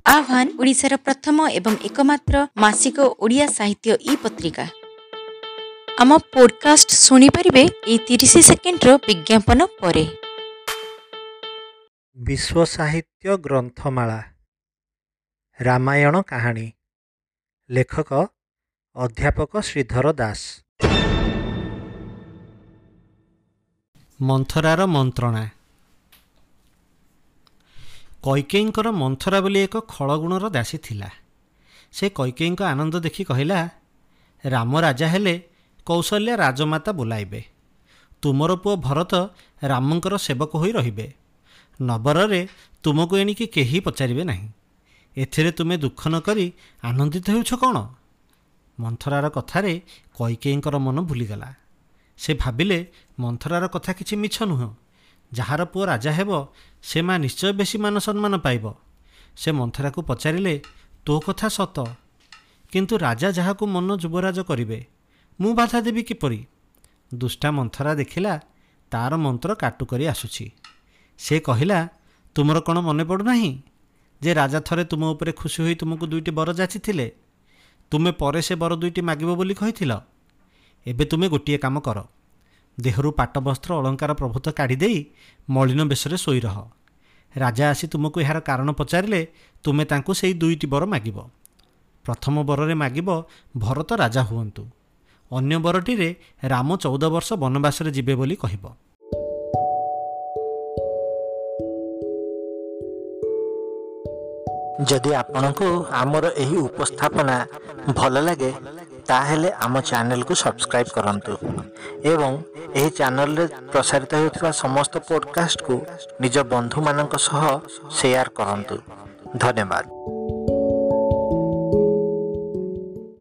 ଆହ୍ୱାନ ଓଡ଼ିଶାର ପ୍ରଥମ ଏବଂ ଏକମାତ୍ର ମାସିକ ଓଡ଼ିଆ ସାହିତ୍ୟ ଇ ପତ୍ରିକା। ଆମ ପୋଡକାଷ୍ଟ ଶୁଣିପାରିବେ ଏଇ 30 ସେକେଣ୍ଡର ବିଜ୍ଞାପନ ପରେ। ବିଶ୍ୱ ସାହିତ୍ୟ ଗ୍ରନ୍ଥମାଳା ରାମାୟଣ କାହାଣୀ, ଲେଖକ ଅଧ୍ୟାପକ ଶ୍ରୀଧର ଦାସ। ମନ୍ଥରାର ମନ୍ତ୍ରଣା। କୈକେୟୀଙ୍କର ମନ୍ଥରା ବୋଲି ଏକ ଖଳଗୁଣର ଦାସୀ ଥିଲା। ସେ କୈକେୟୀଙ୍କ ଆନନ୍ଦ ଦେଖି କହିଲା, ରାମ ରାଜା ହେଲେ କୌଶଲ୍ୟା ରାଜମାତା ବୋଲାଇବେ। ତୁମର ପୁଅ ଭରତ ରାମଙ୍କର ସେବକ ହୋଇ ରହିବେ। ନବରରେ ତୁମକୁ ଏଣିକି କେହି ପଚାରିବେ ନାହିଁ। ଏଥିରେ ତୁମେ ଦୁଃଖ ନ କରି ଆନନ୍ଦିତ ହେଉଛ କ'ଣ? ମନ୍ଥରାର କଥାରେ କୈକେୟୀଙ୍କର ମନ ଭୁଲିଗଲା। ସେ ଭାବିଲେ ମନ୍ଥରାର କଥା କିଛି ମିଛ ନୁହଁ। ଯାହାର ପୁଅ ରାଜା ହେବ ସେ ମା ନିଶ୍ଚୟ ବେଶୀ ମାନ ସମ୍ମାନ ପାଇବ। ସେ ମନ୍ଥରାକୁ ପଚାରିଲେ, ତୋ କଥା ସତ, କିନ୍ତୁ ରାଜା ଯାହାକୁ ମନ ଯୁବରାଜ କରିବେ ମୁଁ ବାଧା ଦେବି କିପରି? ଦୁଷ୍ଟା ମନ୍ଥରା ଦେଖିଲା ତାର ମନ୍ତ୍ର କାଟୁ କରି ଆସୁଛି। ସେ କହିଲା, ତୁମର କ'ଣ ମନେ ପଡ଼ୁନାହିଁ ଯେ ରାଜା ଥରେ ତୁମ ଉପରେ ଖୁସି ହୋଇ ତୁମକୁ ଦୁଇଟି ବର ଯାଚିଥିଲେ? ତୁମେ ପରେ ସେ ବର ଦୁଇଟି ମାଗିବ ବୋଲି କହିଥିଲ। ଏବେ ତୁମେ ଗୋଟିଏ କାମ କର, ଦେହରୁ ପାଟବସ୍ତ୍ର ଅଳଙ୍କାର ପ୍ରଭୃତ କାଢ଼ିଦେଇ ମଳିନ ବେଶରେ ଶୋଇ ରହ। ରାଜା ଆସି ତୁମକୁ ଏହାର କାରଣ ପଚାରିଲେ ତୁମେ ତାଙ୍କୁ ସେଇ ଦୁଇଟି ବର ମାଗିବ। ପ୍ରଥମ ବରରେ ମାଗିବ ଭରତ ରାଜା ହୁଅନ୍ତୁ, ଅନ୍ୟ ବରଟିରେ ରାମ 14 ବର୍ଷ ବନବାସରେ ଯିବେ ବୋଲି କହିବ। ଯଦି ଆପଣଙ୍କୁ ଆମର ଏହି ଉପସ୍ଥାପନା ଭଲ ଲାଗେ, ତାହେଲେ ଆମ ଚ୍ୟାନେଲକୁ ସବସ୍କ୍ରାଇବ୍ କରନ୍ତୁ ଏବଂ ଏହି ଚ୍ୟାନେଲରେ ପ୍ରସାରିତ ହେଉଥିବା ସମସ୍ତ ପଡ଼କାଷ୍ଟକୁ ନିଜ ବନ୍ଧୁମାନଙ୍କ ସହ ସେୟାର କରନ୍ତୁ। ଧନ୍ୟବାଦ।